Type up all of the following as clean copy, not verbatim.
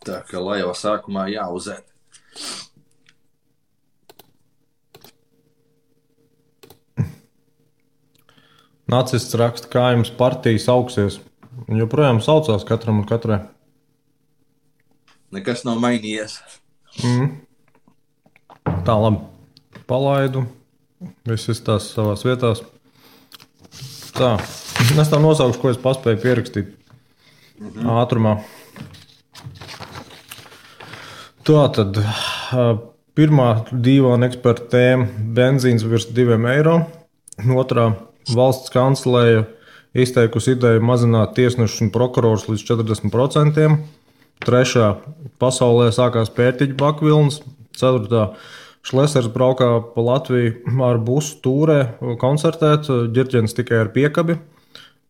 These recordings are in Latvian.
Tā kā lai jau sākumā jāuzēt. Nacists raksta, kā jums partijas augsies. Un joprojām saucās katram un katrai. Nekas nav mainījies. Tā, labi. Palaidu. Viss izstās savās vietās. Tā. Es tā nosaukšu, ko es paspēju pierakstīt. Ātrumā. Tā tad pirmā dīvaina eksperta tēma - benzīns virs 2 eiro. Otrā - valsts kanclēja izteikusi ideju mazināt tiesnešus un prokurorus līdz 40%. Trešā - pasaulē sākās pērtiķu bakvilnas. Ceturtā - Šlesers braukā pa Latviju ar busu tūrē koncertēt, ģirķenis tikai ar piekabi.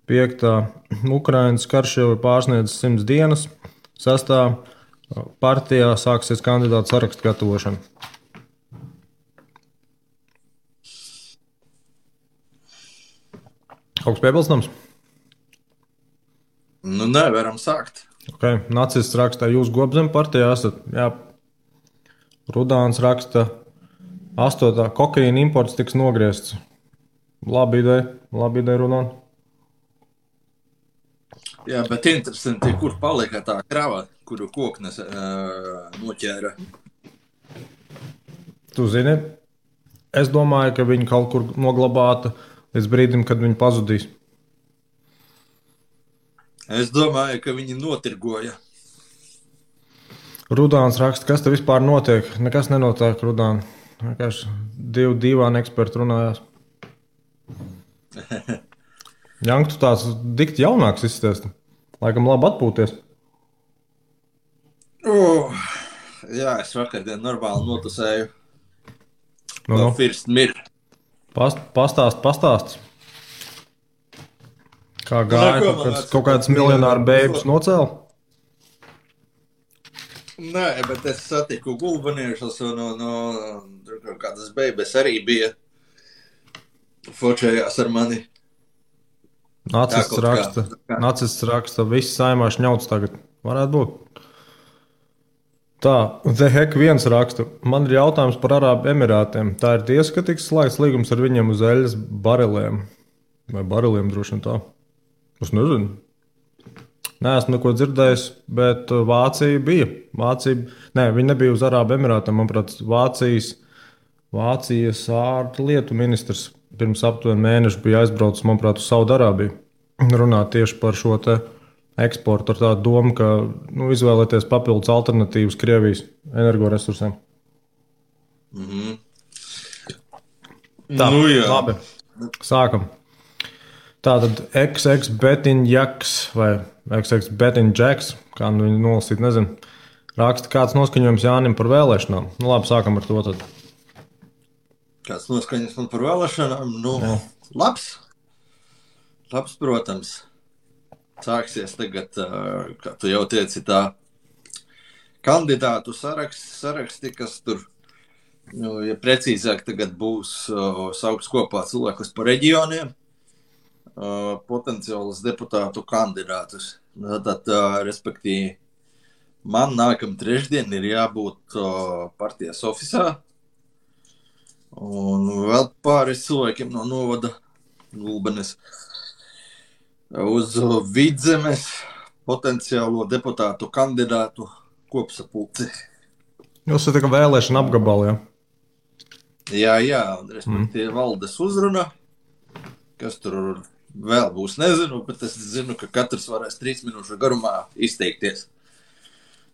Piektā - Ukrainas karš jau ir pārsniedzis 100 dienas. Sestā - partijā sāksies kandidātu sarakstu gatavošana. Kaut kas piebilstams? Nu, nevaram sākt. Okay. Nacists raksta, jūs Gobzem partijā esat. Jā. Rudāns raksta, 8. kokaīna imports tiks nogriezts. Labi ideja, Rudān. Jā, bet interesanti, kur palika tā krava, kuru koknes noķēra. Tu zini, es domāju, ka viņi kaut kur noglabāta līdz brīdim, kad viņi pazudīs. Es domāju, ka viņi notirgoja. Rudāns raksta, kas te vispār notiek? Nekas nenotiek, Rudān. Vienkārši dīvaini eksperti runājās. Jank, tu tāds dikti jaunāks izsties. Laikam labi atpūties. Jā, es vakardien normāli notusēju. No. First mir. Pastāst. Kā gāja, kaut kāds miljonāru bēbus nocēla? Nē, bet es satiku gulbaniešus un kādas bēbes arī bija. Fočējās ar mani. Nacists raksta, viss saimā šņauts tagad. Varētu būt. Tā, The Heck 1 raksta, man ir jautājums par Arābu Emirātiem. Tā ir tiesa, ka tiks slēgts līgums ar viņiem uz eļas bariliem. Vai bariliem droši vien tā? Es nezinu. Neesmu neko dzirdējis, bet Vācija bija. Viņi nebija uz Arābu Emirātiem. Manuprāt, Vācijas ārlietu ministrs pirms aptuveni mēneša bija aizbraucis, manuprāt, uz Saudarābiju. Runāt tieši par šo te eksportu ar tādu domu, ka izvēlēties papildus alternatīvas Krievijas energoresursiem. Tā, labi. Sākam. Tātad XX Betiņjaks vai XX Betiņģeks, kā viņu nolasīt, nezinu, raksta, kāds noskaņojums Jānim par vēlēšanām. Nu labi, sākam ar to tad. Kāds noskaņojums man par vēlēšanām? Labs, protams. Sāksies tagad, kā tu jau teici, tā kandidātu saraksti, kas tur, ja precīzāk tagad būs sauks kopā cilvēkus par reģioniem, potenciālus deputātu kandidātus. Tad, respektīvi, man nākam trešdien ir jābūt partijas ofisā, un vēl pāris cilvēkiem no novada Gulbenes uz Vidzemes potenciālo deputātu kandidātu kopsapulci. Jūs esat tikai vēlēšana apgabali, ja? Jā, un respektīvi valdes uzruna, kas tur vēl būs, nezinu, bet es zinu, ka katrs varēs 3 minūšu garumā izteikties.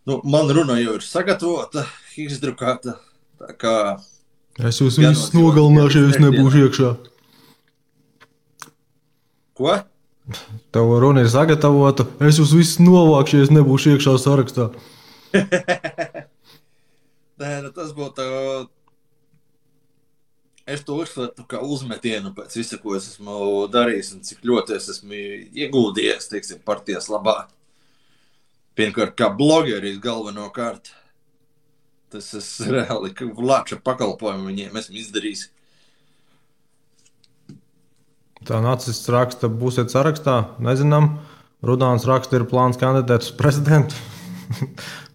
Man runa jau ir sagatavota, izdrukāta, tā kā... Es jūs visus nogalināšu, ja es nebūšu iekšā. Ko? Tev runa ir sagatavota, es jūs visus novākšu, ja es nebūšu iekšā sarakstā. Nē, tas būtu... Es to uzskatu kā uzmetienu pēc visa, ko es esmu darījis un cik ļoti es esmu ieguldījies, teiksim, partijas labā. Pirmkārt, kā blogeris galvenokārt. Tas es reāli lāča pakalpojumu viņiem esmu izdarījis. Tā Nacists raksta, būsiet sarakstā, nezinām. Rudāns raksta, ir plāns kandidēt uz prezidentu.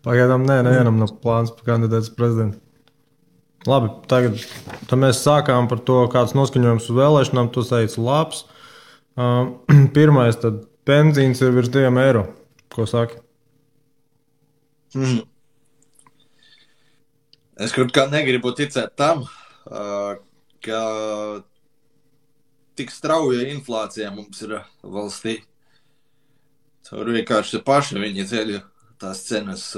Pagaidām nevienam nav plāns par kandidātu prezidentu. Labi, tagad mēs sākām par to, kāds noskaņojums uz vēlēšanām. Tu teici, labs. Pirmais, tad benzīns ir virs 2 eiro. Ko saki? Es kaut kā negribu ticēt tam, ka tik strauja inflācija mums ir valstī. Tur vienkārši paši viņi ceļ tās cenas.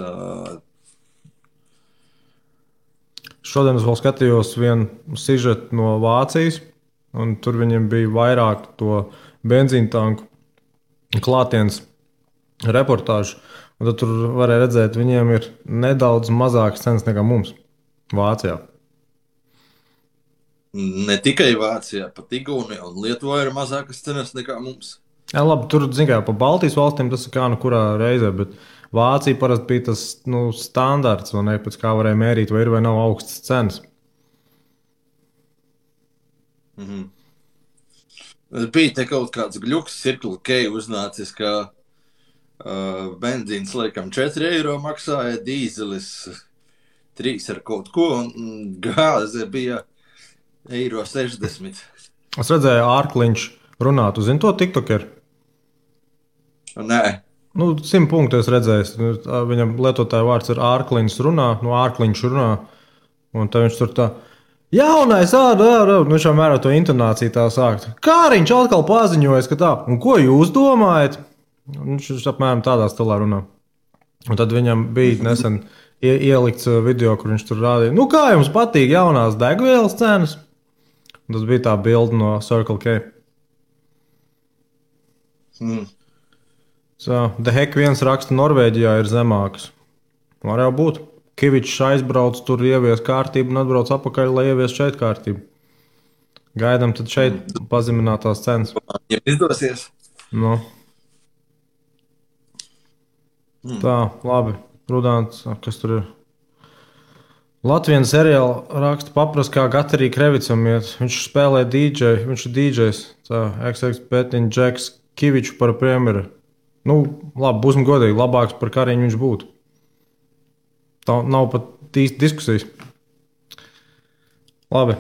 Šodien es vēl skatījos vienu sižetu no Vācijas, un tur viņiem bija vairāk to benzīna tanku klātienes reportāžu. Un tad tur varēja redzēt, viņiem ir nedaudz mazākas cenas nekā mums Vācijā. Ne tikai Vācijā, pat Igaunijā un Lietuvā ir mazākas cenas nekā mums. Jā, labi, tur, zin kā, pa Baltijas valstīm tas ir kā nu kurā reizē, bet Vācija parasti bija tas standarts, vai ne, pēc kā varēja mērīt, vai ir vai nav augstas cenas. Bija te kaut kāds gļuks, Circle K uznācis, ka benzīns laikam 4 eiro maksāja, dīzelis 3 ar kaut ko, un gāze bija 1,60 eiro. Es redzēju, Ārkliņš runā, tu zini to tiktokeru? Nē. 100 punktu es redzēju. Viņam lietotāja vārds ir Ārkliņš runā, Ārkliņš runā, un tad viņš tur tā, jaunais, viņš jau mērā to intonāciju tā sākt. Kāriņš atkal paziņojas, ka tā, un ko jūs domājat? Viņš apmēram tādā stilā runā. Un tad viņam bija nesen ielikts video, kur viņš tur rādīja, kā jums patīk jaunās degvielas cenas? Un tas bija tā bilde no Circle K. The Heck viens raksta, Norvēģijā ir zemākas. Var jau būt. Kivičs aizbrauc, tur ievies kārtību un atbrauc apakaļ, lai ievies šeit kārtību. Gaidām tad šeit pazeminātās cenas. Ja izdosies. Tā, labi. Rudāns, kas tur ir? Latvijas seriāla raksta paprast, kā Gatarī Krevicam iet. Viņš spēlē DJ, viņš ir DJs. Tā, XX Petiņ, Džeks, Kiviču par premjeru. Labi, būsim godīgi, labāks par Kariņu viņš būtu. Tā nav pat īsti diskusijas. Labi.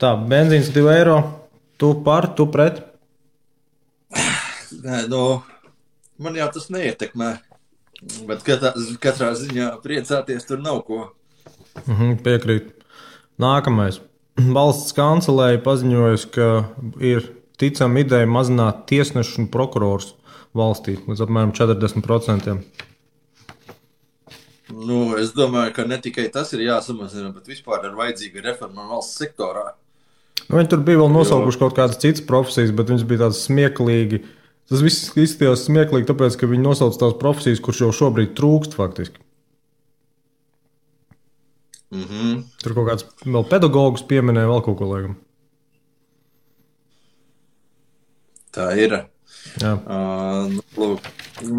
Tā, benzīns 2 eiro. Tu par, tu pret? Nē, man jau tas neietekmē. Bet katrā ziņā priecāties tur nav ko. Piekrīt. Nākamais. Valsts kancelēja paziņojusi, ka ir ticama ideja mazināt tiesnešu un prokurors valstī līdz apmēram 40%. Es domāju, ka ne tikai tas ir jāsamazina, bet vispār ir vajadzīga reforma valsts sektorā. Viņi tur bija vēl nosaukuši kaut kādas citas profesijas, bet viņas bija tādas smieklīgi. Tas viss izskatījās smieklīgi, tāpēc, ka viņi nosauc tās profesijas, kurš jau šobrīd trūkst faktiski. Tur kaut kāds vēl pedagogus pieminēja, vēl kaut ko laikam. Tā ir. Jā.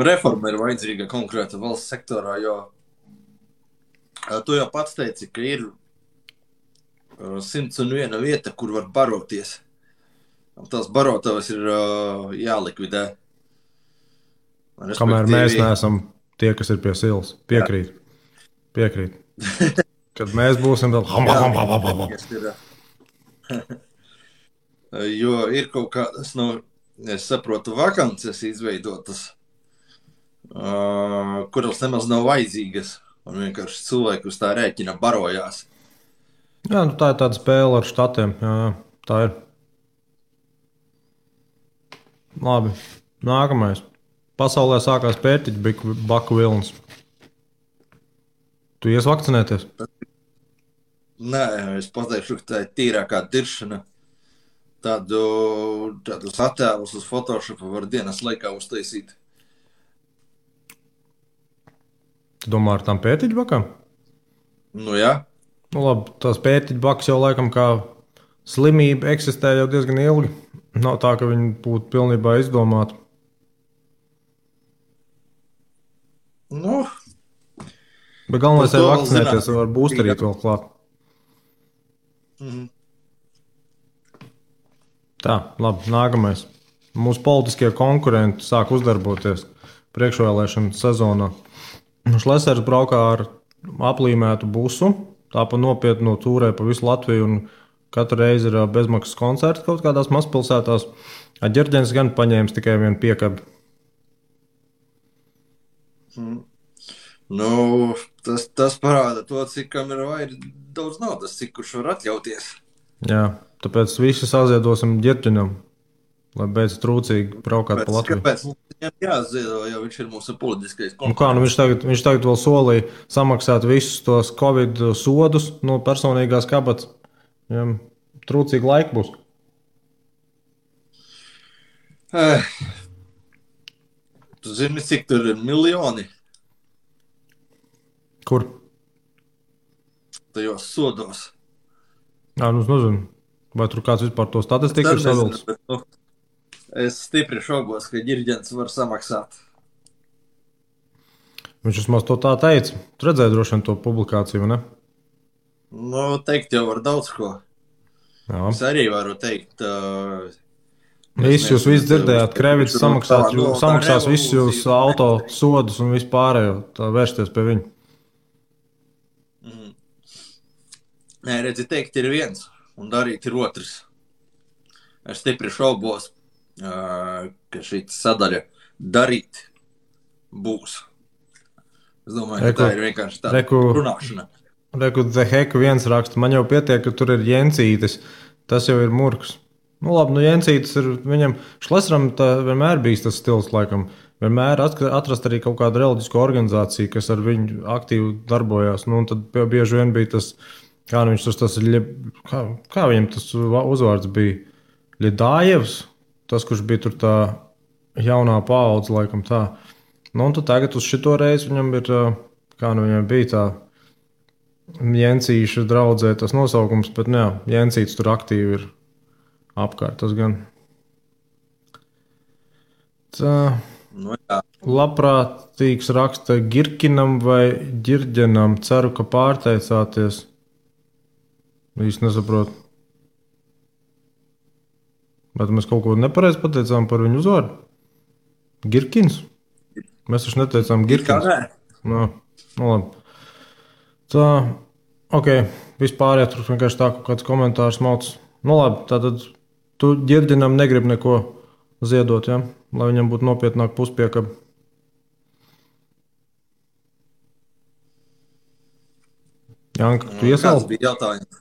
Reforma ir vajadzīga konkrēta valsts sektorā, jo tu jau pats teici, ka ir 101 vieta, kur var baroties. Tās barotavas ir jālikvidē. Kamēr mēs neesam tie, kas ir pie silas. Piekrīt. Kad mēs būsim vēl... Jo ir kaut kādas, es saprotu, vakances izveidotas, kuras nemaz nav vajadzīgas. Un vienkārši cilvēki uz tā rēķina barojās. Jā, tā ir tāda spēle ar štatiem. Jā, tā ir. Labi, nākamais. Pasaulē sākās pērtiķu baku vilnis. Tu ies vakcinēties? Nē, es pateikšu, ka tā ir tīrākā diršana. Tādus attēlus uz Photoshopu var dienas laikā uztaisīt. Tu domā ar tām pērtiķu bakām? Jā. Labi, tās pērtiķu bakas jau laikam kā slimība eksistē jau diezgan ilgi. Nav tā, ka viņi būtu pilnībā izdomāti. Bet galvenais ir vakcinēties, var būsterīt vēl klāt. Tā, labi, nākamais. Mūsu politiskie konkurenti sāk uzdarboties priekšvēlēšanu sezonā. Šlesers braukā ar aplīmētu busu, tā pa nopietnu tūrē pa visu Latviju, un katru reizi ir bezmaksas koncerti kaut kādās mazpilsētās. Ģerģens gan paņēmis tikai vienu piekabi. Nu, tas parāda to, cik kam ir daudz naudas, cik kurš var atļauties. Jā, tāpēc visi saziedosim Ģerģenam, lai beidz trūcīgi braukāt pa Latviju. Kāpēc mums viņam jāziedo, jo viņš ir mūsu politiskais konkurents? Kā, viņš tagad vēl solīja samaksāt visus tos Covid sodus no personīgās kabatas. Viņam trūcīgi laika būs. Tu zini, cik tur ir miljoni? Kur? Tajos sodos. Jā, nu es nezinu. Vai tur kāds vispār to statistiku ir savilcis? Es stipri šaubos, ka Ģerģens var samaksāt. Viņš vismaz to tā teica. Tu redzēji droši vien to publikāciju, ne? Nu, teikt jau var daudz ko. Jā. Es arī varu teikt... Jūs visi dzirdējāt, Krevits samaksās visus jūs auto sodus un vispārējo, tā vērsties pie viņu. Nē, redzi, teikt ir viens un darīt ir otrs. Es stipri šaubos, ka šī sadaļa darīt būs. Es domāju, ka tā ir vienkārši tāda runāšana. Reku, The Heck viens raksta, man jau pietiek, ka tur ir Jensītis, tas jau ir murgs. Nu labi, nu Jensītis ir viņam, Šleseram vienmēr bijis tas stils, laikam. Vienmēr atrast arī kaut kādu reliģisku organizāciju, kas ar viņu aktīvi darbojās. Nu, un tad bieži vien bija tas, kā viņam tas uzvārds bija, Ļedājevs, tas, kurš bija tur tā jaunā paudze, laikam tā. Nu, un tad tagad uz šito reizi viņam ir, viņam bija tā Jensīša draudzē tas nosaukums, bet jā, Jensīts tur aktīvi ir apkārt, tas gan. Tā, nu, jā. Labprātīgs raksta Girkinam vai Ģerģenam, ceru, ka pārteicāties. Īsti nesaprotu. Bet mēs kaut ko nepareizi pateicām par viņu uzvārdu? Girkins? Mēs taču neteicām Girkins. Nu labi. Tā, ok, vispār tur vienkārši tā kaut kāds komentārs mauc. Nu labi, tātad tu Ģerģenam negribi neko ziedot, ja? Lai viņam būtu nopietnāk puspiekaba. Janka, tu iesāli? Kāds bija jautājums?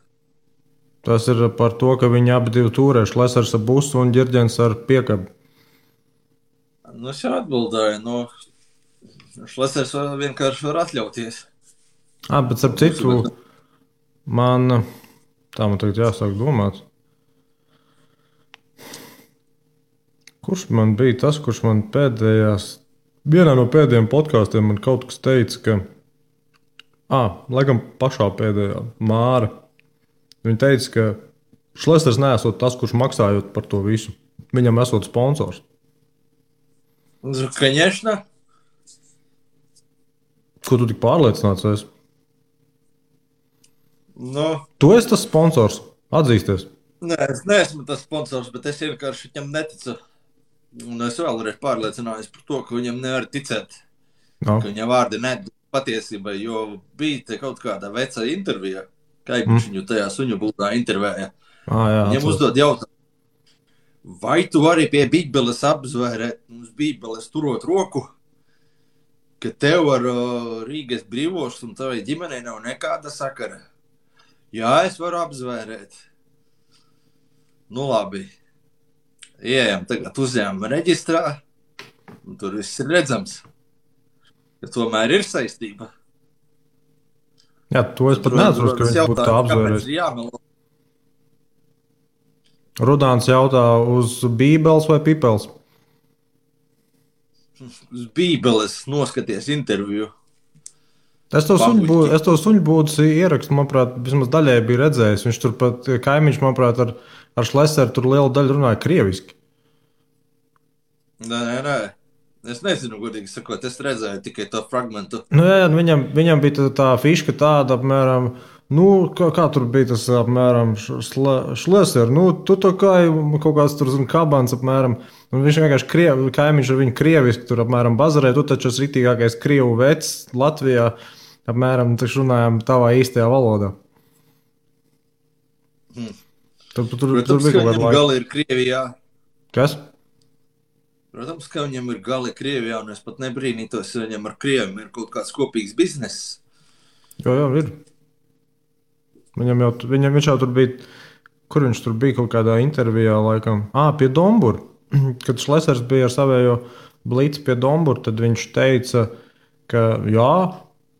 Tas ir par to, ka viņi abi divi turē, Šlesers ar busu un Ģerģens ar piekabi. Nu, es jau atbildēju, Šlesers vienkārši var atļauties. Bet ar citu, man tagad jāsāk domāt. Kurš man bija tas, kurš man vienā no pēdējiem podkāstiem man kaut kas teica, ka, laikam pašā pēdējā Māra, viņa teica, ka Šlesers neesot tas, kurš maksājot par to visu. Viņam esot sponsors. Конечно. Ko tu tik pārliecināts esi? Nu. Tu esi tas sponsors? Atzīsties. Nē, es neesmu tas sponsors, bet es vienkārši viņam neticu. Un es vēlreiz pārliecinājos par to, ka viņam nevar ticēt. No. Ka viņa vārdi nedod patiesībai, jo bija te kaut kāda veca intervija. Kaipiņš viņu tajā suņu būdā intervēja. Viņam uzdod jautājumu, vai tu vari pie Bībeles apzvērēt mums Bībeles turot roku, ka tev ar Rīgas brīvošs un tavai ģimenei nav nekāda sakara? Jā, es varu apzvērēt. Nu labi. Ieejam tagad uzņēmuma reģistrā, un tur viss ir redzams, ka tomēr ir saistība. Jā, to es pat neatceros, ka viņš būtu tā apzvērējis. Rudāns jautā uz Bībeles vai Pipels? Uz Bībeles noskaties interviju. Es to suņu būdas ierakstu, manuprāt, vismaz daļēji bija redzējis. Viņš tur pat kaimiņš, manuprāt, ar Šleseru tur lielu daļu runāja krieviski. Nē. Es nezinu, godīgi sakot, es redzēju tikai to fragmentu. Nu, jā, viņam bija tā fiška tāda, apmēram, kā tur bija tas, apmēram, Šleser, tu tā kā kaut kāds tur, kabans, apmēram, Un viņš vienkārši kaimiņš ar viņu krieviski tur apmēram bazarē. Tu taču esi ritīgākais krievu vecs Latvijā. Apmēram taču runājām tavā īstajā valodā. Tur Protams, bija ka kaut kāda viņam laika. gali ir Krievijā. Kas? Protams, ka viņam ir gali Krievijā, un es pat nebrīnītos, ja viņam ar Krieviem ir kaut kāds kopīgs bizness. Jā, ir. Viņš jau tur bija, kur viņš tur bija kaut kādā intervijā laikam. Pie Dombura. Kad Šlesers bija ar savējo blīci pie Dombura, tad viņš teica, ka jā,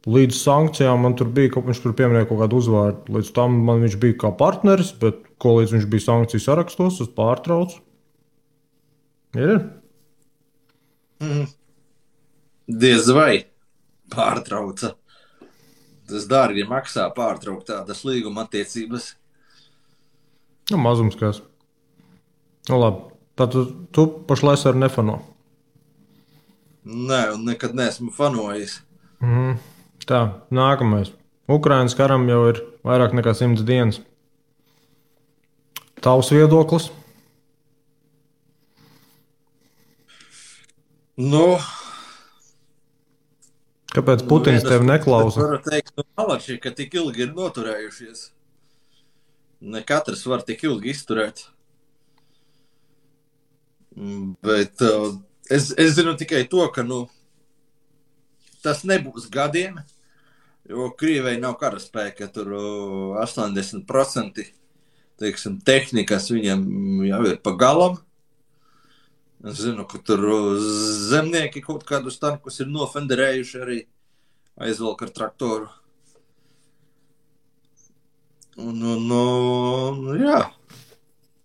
līdz sankcijām man tur bija, viņš tur pieminēja kaut kādu uzvārdu. Līdz tam man viņš bija kā partneris, bet ko līdz viņš bija sankciju sarakstos, es pārtraucu. Ir? Diez vai pārtrauca. Tas dārgi maksā pārtraukt tādas līguma attiecības. Mazums kāds. Labi. Tad tu pašlaik ar nefano. Nē, un nekad neesmu fanojis. Tā, nākamais. Ukrainas karam jau ir vairāk nekā 100 dienas. Tavs viedoklis? Kāpēc Putins tevi neklausa? Es varu teikt, malači, ka tik ilgi ir noturējušies. Ne katrs var tik ilgi izturēt. Bet es zinu tikai to, ka tas nebūs gadiem, jo Krievijai nav karaspēka. Tur 80% teiksim, tehnikas viņam jau ir pa galam. Es zinu, ka tur zemnieki kaut kādus tankus ir nofenderējuši arī aizvelk ar traktoru. Un jā,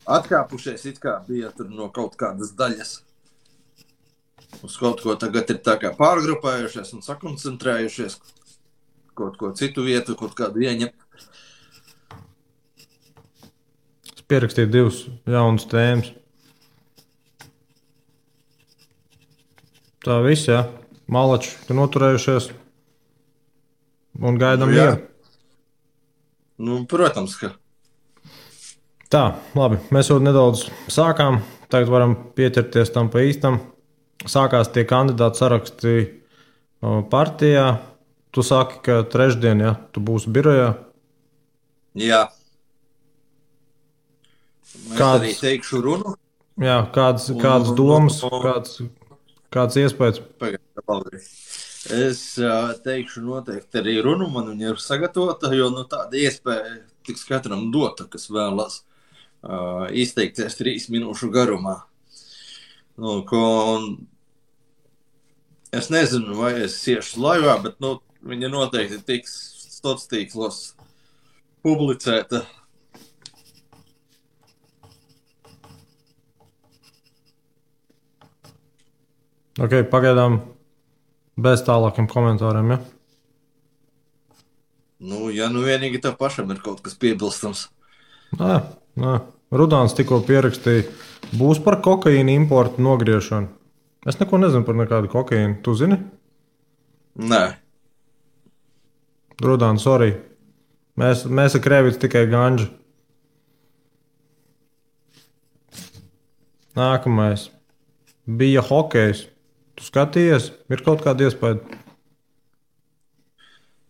atkāpušies it kā bija tur no kaut kādas daļas. Uz kaut ko tagad ir tā kā pārgrupējušies un sakoncentrējušies. Kaut ko citu vietu, kaut kādu ieņemt. Es pierakstīju 2 jaunas tēmas. Tā viss, jā. Malači, ka noturējušies un gaidām mieru. Protams, ka. Tā, labi. Mēs jau nedaudz sākām. Tagad varam pieķerties tam pa īstam. Sākās tie kandidāti saraksti partijā. Tu saki, ka trešdien, ja, tu būsi birojā. Jā. Es arī teikšu runu. Jā, kādas domas, kāds iespējas? Es teikšu noteikti arī runu, man viņa ir sagatavota, jo tāda iespēja tiks katram dota, kas vēlas izteikties 3 minūšu garumā. Es nezinu, vai es iešu laivā, bet viņa noteikti tiks sociālos tīklos publicēta. Ok, pagaidām bez tālākiem komentāriem, ja? Ja vienīgi tev pašam ir kaut kas piebilstams. Nē. Rudāns tikko pierakstīja, būs par kokaīnu importu nogriešanu. Es neko nezinu par nekādu kokaīnu. Tu zini? Nē. Rudāns, sorry. Mēs ar Krēvicu tikai ganģi. Nākamais. Bija hokejs. Tu skatījies? Ir kaut kāda iespēja?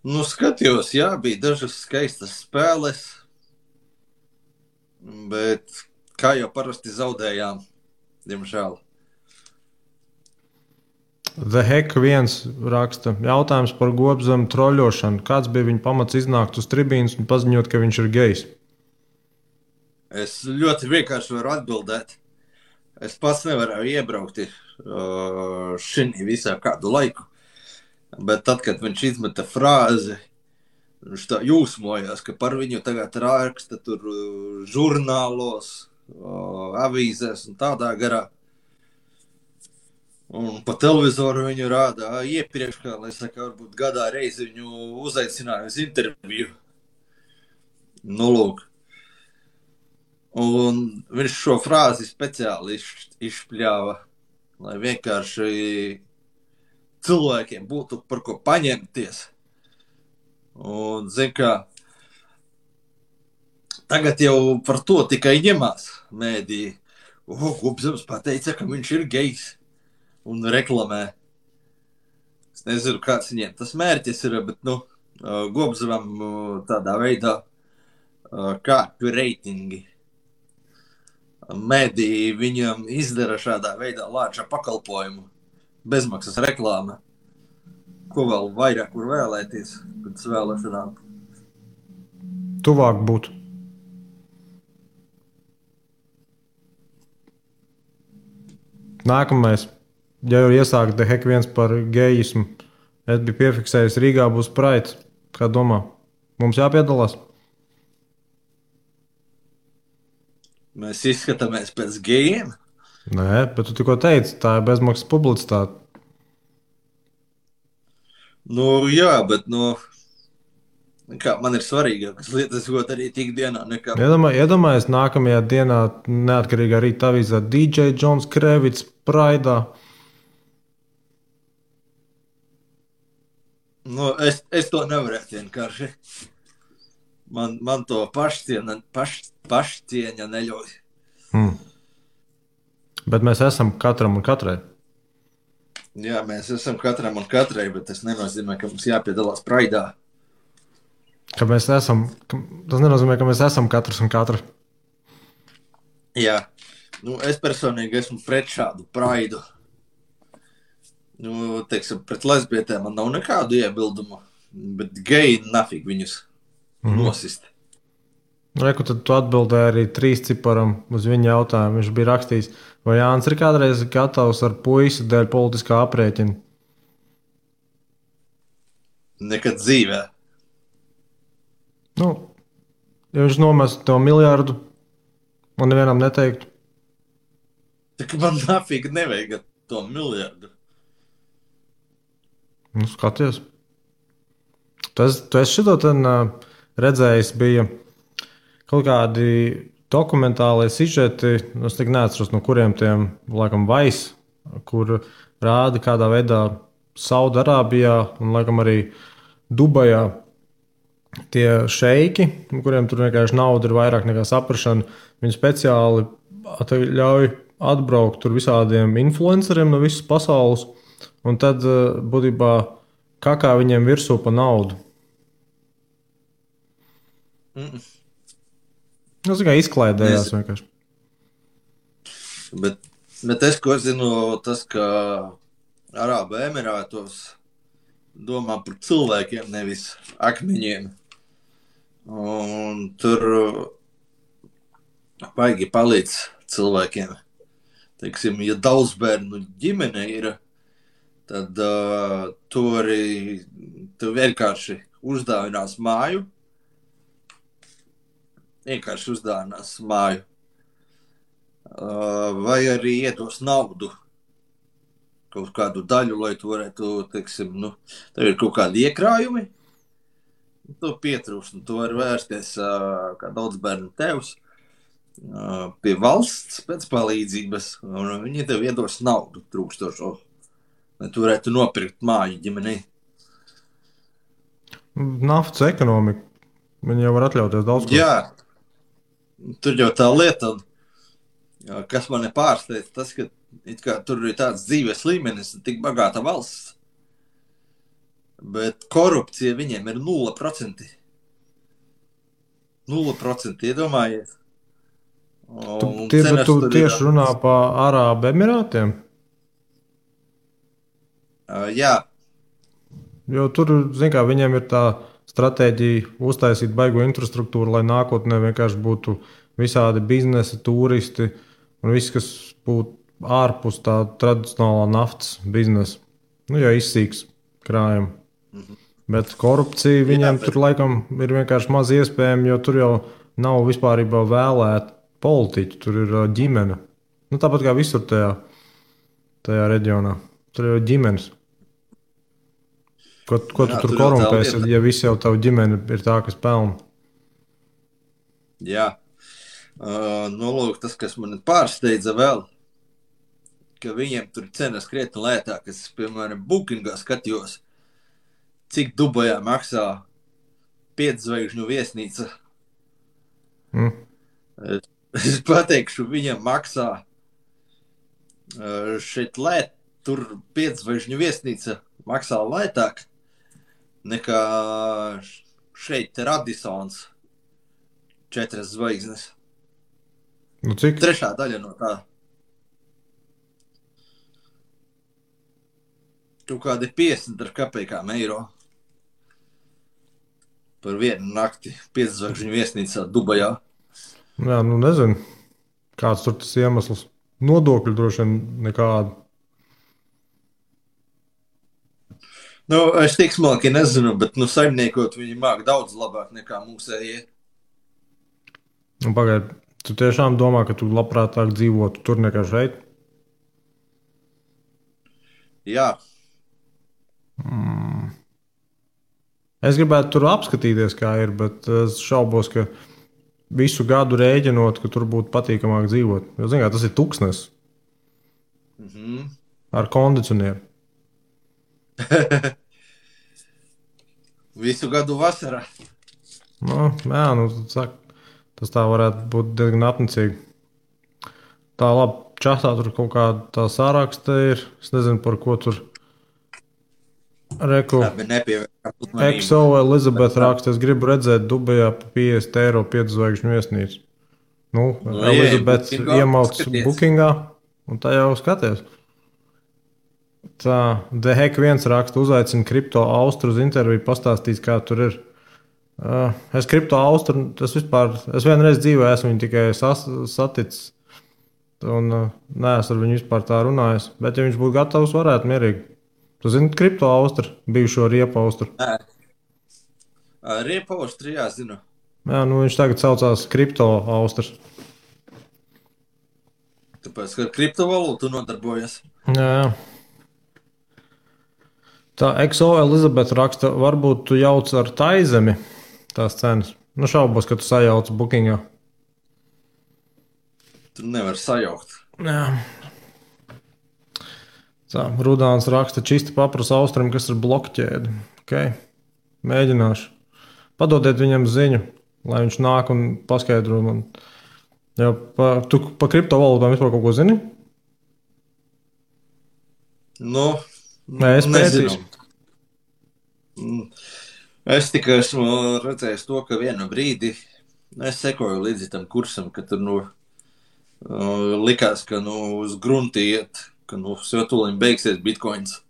Skatījos, jā, bija dažas skaistas spēles, bet kā jau parasti zaudējām, diemžēl. The Heck viens raksta jautājums par Gobzemu troļošanu. Kāds bija viņa pamats iznākt uz tribīnas un paziņot, ka viņš ir gejs? Es ļoti vienkārši varu atbildēt. Es pats nevarēju iebraukt šī visā kādu laiku. Bet tad, kad viņš izmeta frāzi, viņš tā jūsmojās, ka par viņu tagad raksta tur žurnālos, avīzēs un tādā garā. Un pa televizoru viņu rādā iepriekš, kā, lai saka, varbūt gadā reizi viņu uzaicināja uz interviju. Lūk. Un viņš šo frāzi speciāli izšpļāva, lai vienkārši cilvēkiem būtu par ko paņemties. Un, zin kā, tagad jau par to tikai ņemās mēdī. Gobzems pateica, ka viņš ir gejs un reklamē. Es nezinu, kāds viņiem tas mērķis ir, bet, Gobzevam tādā veidā kāpju reitingi. Mediji viņam izdara šādā veidā lāča pakalpojumu, bezmaksas reklāma. Ko vēl vairāk var vēlēties pēc vēlēšanām? Tuvāk būt. Nākamais, ja jau iesākta hek viens par gejismu, es biju piefiksējis, Rīgā būs Pride. Kā domā? Mums jāpiedalās? Mēs izskatāmies pēc gejiem? Nē, bet tu tikko teici, tā ir bezmaksas publicitāte. Jā, bet, kā man ir svarīgākas lietas, ko darīt ikdienā nekā... Iedomājies nākamajā dienā neatkarīgā rīta avīzē DJ Džons Krevits Pride'ā. Es to nevarētu vienkārši. Man to pašcieņa neļauj. Bet mēs esam katram un katrai. Jā, mēs esam katram un katrai, bet tas nenozīmē, ka mums jāpiedalās Pride'ā. Tas nenozīmē, ka mēs esam katrs un katra. Jā, es personīgi esmu pret šādu Pride'u. Teiksim, pret lesbietēm man nav nekādu iebildumu, bet geji nafig viņus nosist. Reku, tad tu atbildēji arī 3 ciparam uz viņa jautājumu. Viņš bija rakstījis, vai Jānis ir kādreiz gatavs ar puisi dēļ politiskā aprēķina? Nekad dzīvē. Ja viņš nomestu to miljardu, man nevienam neteiktu. Tā man nafig nevajag to miljardu. Skaties. Tu esi šito redzējis, bija kaut kādi dokumentālie sižeti, es tik neatceros, no kuriem tiem, laikam, Vice, kur rāda kādā veidā Saudarābijā un, laikam, arī Dubajā tie šeiki, kuriem tur vienkārši nauda ir vairāk nekā saprašana, viņi speciāli ļauj atbraukt tur visādiem influenceriem no visas pasaules, un tad būtībā kakā viņiem virsū pa naudu. Tas tikai izklaidējās vienkārši. Bet es, ko zinu, tas, ka Arābu Emirātos domā par cilvēkiem, nevis akmeņiem. Un tur baigi palīdz cilvēkiem. Teiksim, ja daudz bērnu ģimene ir, tad tu vienkārši uzdāvinās māju. Vai arī iedos naudu, kaut kādu daļu, lai tu varētu, teiksim, tev ir kaut kādi iekrājumi, tu pietrūkst, tu vari vērsties kā daudz bērnu tevs pie valsts pēc palīdzības, un viņi tev iedos naudu trūkstošo, lai tu varētu nopirkt māju ģimenei. Naftas ekonomika. Viņi jau var atļauties daudz ko. Jā, tur jau tā lieta, kas mani pārsteidz, tas, ka it kā tur ir tāds dzīves līmenis, tik bagāta valsts, bet korupcija viņiem ir 0%. 0%, iedomājies. Tu tieši runā par Arābu Emirātiem? Jā. Jo tur, zin kā, viņiem ir tā stratēģija uztaisīt baigo infrastruktūru, lai nākotnē vienkārši būtu visādi biznesi, turisti un viss, kas būtu ārpus tā tradicionālā naftas biznesa. Ja izsīks krājumi. Bet korupcija viņiem tur laikam ir vienkārši maz iespējama, jo tur jau nav vispārībā vēlēti politiķi, tur ir ģimene. Tāpat kā visur tajā reģionā. Tur ir ģimenes. Ko tu tur korumpēsi, ja viss jau tavu ģimeni ir tā, kas pelna? Jā. Lūk, tas, kas man pārsteidza vēl, ka viņiem tur cenas krietni lētākas. Piemēram, Bookingā skatījos, cik Dubajā maksā 5 zvaigžņu viesnīca. Es pateikšu, viņam maksā Šeit tur 5 zvaigžņu viesnīca maksā lētāk nekā šeit Radisons 4 zvaigznes. Nu, cik? Trešā daļa no tā. Tu kādi 50 ar kapekām eiro par vienu nakti 5 zvaigžņu viesnīcā Dubajā. Jā, nu nezinu, kāds tur tas iemesls. Nodokļu droši vien nekādu. Nu, es tik smalki nezinu, bet saimniekot viņi māk daudz labāk nekā mūsējie. Nu, pagaid, tu tiešām domā, ka tu labprātāk dzīvotu tur nekā šeit? Jā. Es gribētu tur apskatīties, kā ir, bet es šaubos, ka visu gadu rēķinot, ka tur būtu patīkamāk dzīvot. Jo, zin kā, tas ir tuksnes ar kondicionieru. Visu gadu vasarā. Nu, jā, nu, tas tā varētu būt diezgan apnicīgi. Tā labi, čatā tur kaut kāda tā sāraksta ir. Es nezinu, par ko tur reku. XO Elizabete raksta, es gribu redzēt Dubajā pa 50 eiro 5 zvaigžņu viesnīcu. Nu, Elizabete iemauc bookingā, un tā jau skaties. Tā, The Heck 1 raksta, uzaicina Kripto Austru uz interviju, pastāstīs, kā tur ir. Es Kripto Austru, es vienreiz dzīvē esmu viņu tikai saticis, un neesmu ar viņu vispār tā runājis, bet ja viņš būtu gatavs, varētu mierīgi. Tu zini Kripto Austru, bijušo Riepu Austru? Riepu Austru, jā, zinu. Jā, nu viņš tagad saucās Kripto Austrs. Tāpēc, ka ar kriptovalūtu nodarbojas. Jā. Tā XO Elizabete raksta, varbūt tu jauc ar Taizemi tās cenas. Nu šaubos, ka tu sajauc bookingā. Tu nevar sajaukt. Jā. Tā, Rudāns raksta, čisti paprasa Austram, kas ir blokķēde. Okay. Mēģināšu. Padodiet viņam ziņu, lai viņš nāk un paskaidro man. Jā, tu pa kriptovalūtām vispār kaut ko zini? Nu, nē, es pētīšu. Es tikai esmu redzējis to, ka vienu brīdi es sekoju līdzi tam kursam, ka tur likās, ka uz grunti iet, ka tūlīt beigsies bitcoins.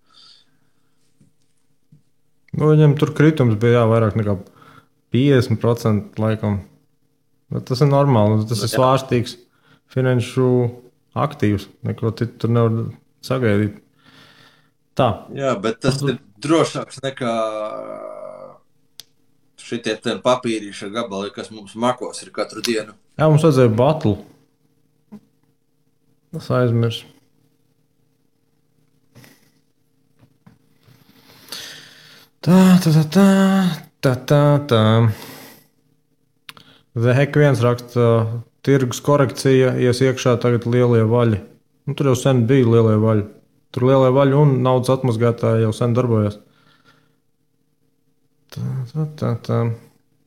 Nu, viņam tur kritums bija vairāk nekā 50% laikam. Bet tas ir normāli, tas ir svārstīgs finanšu aktīvs. Neko tur nevar sagaidīt. Tā. Jā, bet tas ir drošāks nekā šitie papīrīša gabali, kas mums makos ir katru dienu. Jā, mums vajadzēja batlu. Es aizmirsu. Tā. The Heck 1 raksta, tirgus korekcija, ies iekšā tagad lielie vaļi. Nu, tur jau sen bija lielie vaļi. Tur lielie vaļi un naudas atmazgātāji jau sen darbojas. Tā.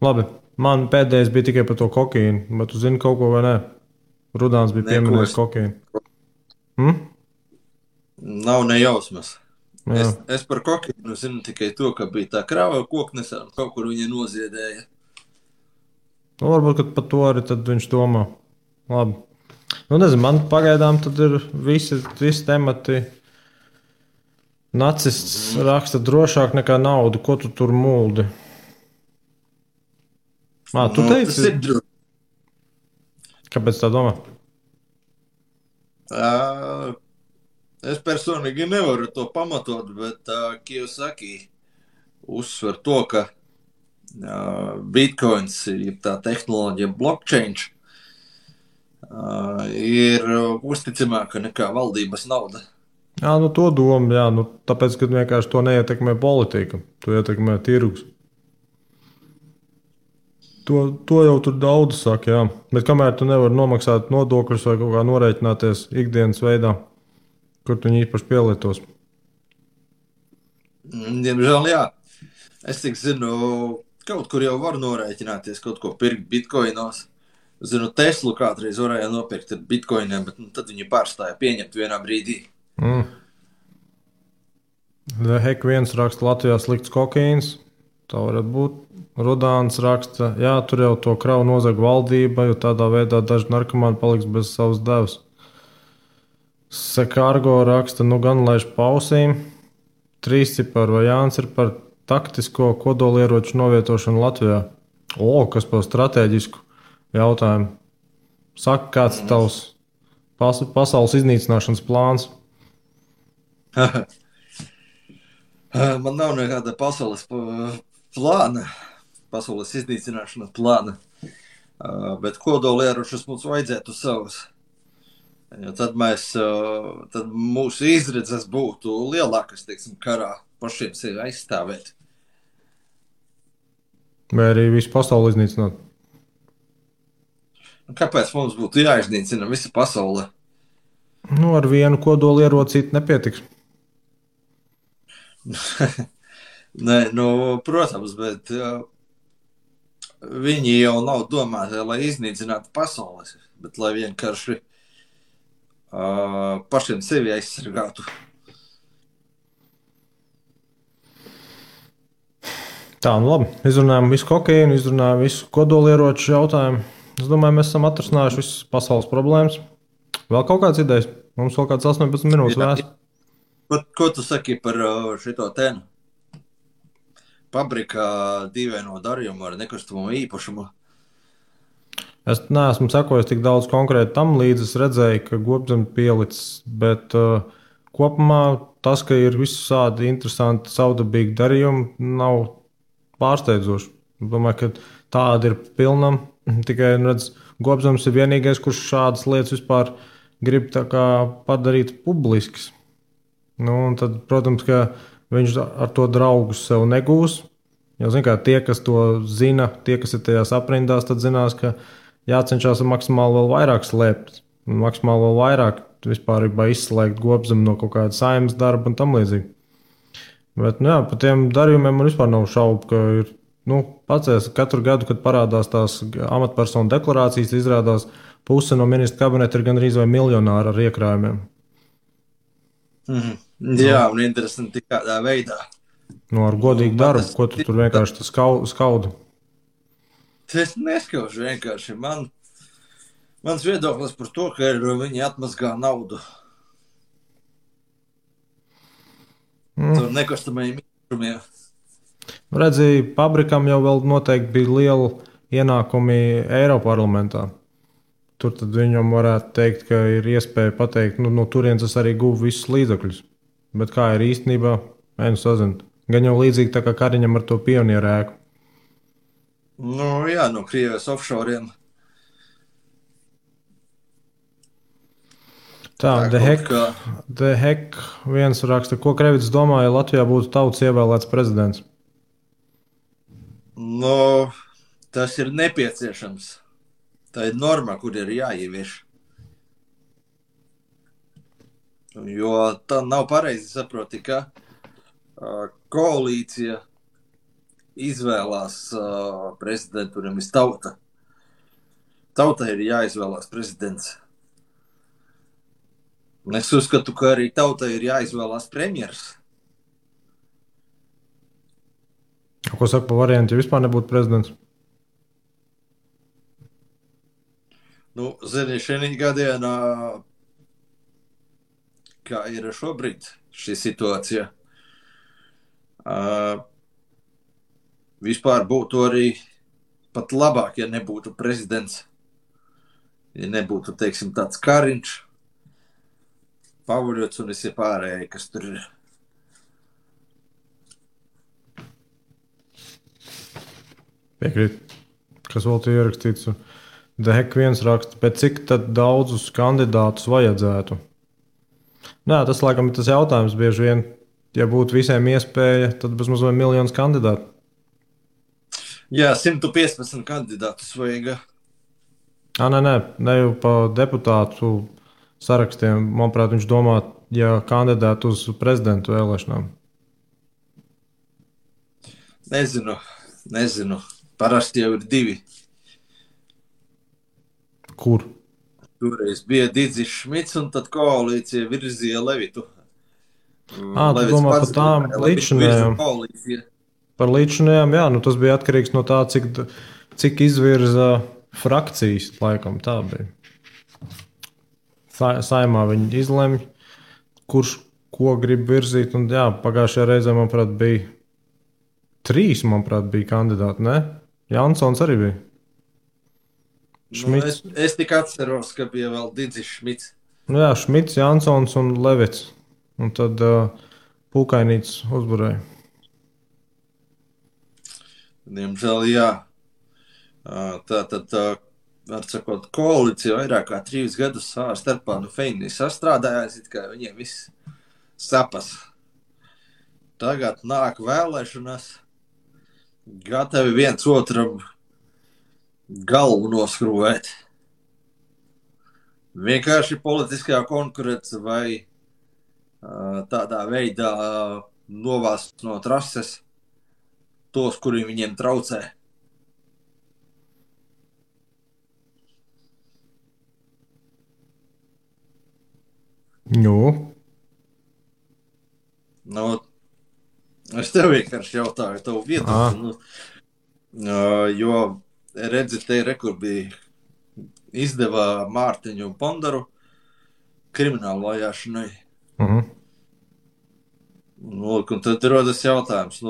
Labi, man pēdējais bija tikai par to kokaīnu, bet tu zini kaut ko vai nē? Rudāns bija pieminējis kokaīnu. Nav nejausmas. Es par kokaīnu zinu tikai to, ka bija tā krāva koknesā un kaut kur viņa noziedēja. Nu, varbūt par to arī tad viņš domā. Labi. Nu, nezinu, man pagaidām tad ir visi temati. Nacists raksta drošāk nekā naudu. Ko tu tur muldi? Tu teici? Tas ir droši. Kāpēc tā domā? Es personīgi nevaru to pamatot, bet Kiyosaki uzsver to, ka Bitcoins ir tā tehnoloģija blockchain ir uzticamāka nekā valdības nauda. Jā, nu to domu, jā, nu tāpēc, ka vienkārši to neietekmē politika, to ietekmē tirgus. To jau tur daudz saka, jā. Bet kamēr tu nevari nomaksāt nodokļus vai kaut kā norēķināties ikdienas veidā, kur tu viņi īpaši pielietos? Diemžēl, jā. Es tik zinu, kaut kur jau var norēķināties, kaut ko pirkt bitcoinos, Zinu, Teslu kādreiz varēja nopirkt ar bitkoiniem, bet tad viņi pārstāja pieņemt vienā brīdī. The Heck viens raksta Latvijā slikts kokaīns. Tā varētu būt. Rudāns raksta, jā, tur jau to kravu nozag valdība, jo tādā veidā daži narkomāni paliks bez savas devas. Sekārgo raksta, nu gan laiž pausīm. Trīsciparu vai Jānis ir par taktisko kodolieroču novietošanu Latvijā. Kas par strateģisku jautājumu. Saka, kāds ir tavs pasaules iznīcināšanas plāns? Man nav nekāda pasaules plāna, pasaules iznīcināšanas plāna, bet kodolieročus mums vajadzētu savus. Jo tad mūsu izredzes būtu lielākas, teiksim, karā pašiem sevi aizstāvēt. Vai arī visu pasauli iznīcināt? Kāpēc mums būtu jāiznīcina visa pasaule? Nu, ar vienu kodolierocīti nepietiks. Nē, protams, bet viņi jau nav domāti, lai iznīcinātu pasaules, bet lai vienkārši pašiem sevi aizsargātu. Tā, nu labi. Izrunājam visu kokaīnu, izrunājam visu kodolieroču jautājumu. Es domāju, mēs esam atrisinājuši visas pasaules problēmas. Vēl kaut kādas idejas? Mums vēl kāds 18 minūtes vēst. Ko tu saki par šito tēnu? Pabrikā dīvaino darījumu ar nekustamo īpašumu. Es neesmu sekojis tik daudz konkrēti tam līdzi. Es redzēju, ka Gobzem pielicis, bet kopumā tas, ka ir visādi interesanti savdabīgi darījumi, nav pārsteidzoši. Domāju, ka tāda ir pilnam. Tikai, redz, Gobzems ir vienīgais, kurš šādas lietas vispār grib tā kā padarīt publiskas. Nu, un tad, protams, ka viņš ar to draugus sev negūs. Jo, zin kā, tie, kas to zina, tie, kas ir tajās aprindās, tad zinās, ka jācenšas maksimāli vēl vairāk slēpt. Maksimāli vēl vairāk vispār izslēgt Gobzemu no kaut kāda saimnes darba un tam līdzīgi. Bet, nu jā, par tiem darījumiem man vispār nav šaubu, ka ir, pacēs katru gadu, kad parādās tās amatpersonu deklarācijas, izrādās puse no ministra kabineta ir gandrīz vai miljonāri ar iekrājumiem. Jā, un interesanti kādā veidā. Ar godīgu darbu, ko tu tur vienkārši skaudu? Es neskaužu vienkārši. Mans viedoklis par to, ka viņi atmazgā naudu. Tur nekustamajiem īpašumiem. Redzi, Pabrikam jau vēl noteikti bija liela ienākumi Eiroparlamentā. Tur tad viņam varētu teikt, ka ir iespēja pateikt, no turienes es arī guvu visus līdzekļus. Bet kā ir īstenībā, sazinu. Gan jau līdzīgi tā kā Kariņam ar to pionieru ēku. Jā, no Krievijas offshoriem. Tā, The Heck viens raksta, ko Krevits domā, ja Latvijā būtu tautas ievēlēts prezidents? Tas ir nepieciešams. Tā ir norma, kur ir jāievieš. Jo tā nav pareizi saproti, ka koalīcija izvēlās prezidentu, nevis tauta. Tautai ir jāizvēlās prezidents. Un es uzskatu, ka arī tautai ir jāizvēlās premjers. Ko saka par variantu, ja vispār nebūtu prezidents? Zini, šī gadienā, kā ir šobrīd šī situācija, vispār būtu arī pat labāk, ja nebūtu prezidents. Ja nebūtu, teiksim, tāds Kariņš, Pavuļots un visi pārējie, kas tur ir. Piekrīt. Kas vēl te ierakstīts? The Heck viens raksta, bet cik tad daudzus kandidātus vajadzētu? Nē, tas laikam ir tas jautājums bieži vien. Ja būtu visiem iespēja, tad bezmaz vai miljonus kandidātu. Jā, 115 kandidātus vajag. Ne jau pa deputātu sarakstiem. Manuprāt, viņš domā, ja kandidātu uz prezidentu vēlēšanām. Nezinu. Parasti jau ir 2. Kur? Toreiz bija Digis Šmits, un tad koalīcija virzīja Levitu. Tu Levits domā par pats tām gribēja Levitu virza līdzinējām? koalīcija. Par līdzinējām, jā, nu tas bija atkarīgs no tā, cik izvirza frakcijas, laikam tā bija. Saimā viņi izlemj, kurš ko grib virzīt, un jā, pagājušajā reizē, manuprāt, bija 3, manuprāt, bija kandidāti, ne? Jansons arī bija. Šmits. Es tikai atceros, ka bija vēl Digis Šmits. Nu jā, Šmits, Jansons un Levits. Un tad Pūkainīts uzvarēja. Diemžēl, jā. Tātad, var sakot, koalīcija vairāk kā 3 gadus savā starpā feini sastrādājās, it kā viņiem viss sapas. Tagad nāk vēlēšanas, gatavi viens otram galvu noskrūvēt. Vienkārši politiskā konkurence vai tādā veidā novāst no trases tos, kuri viņiem traucē. Es tev vienkārši jautāju tavu viedokli. Jo redzi, te rekur bija izdevā Mārtiņu un Pondaru kriminālu vajāšanai. Un tad rodas jautājums,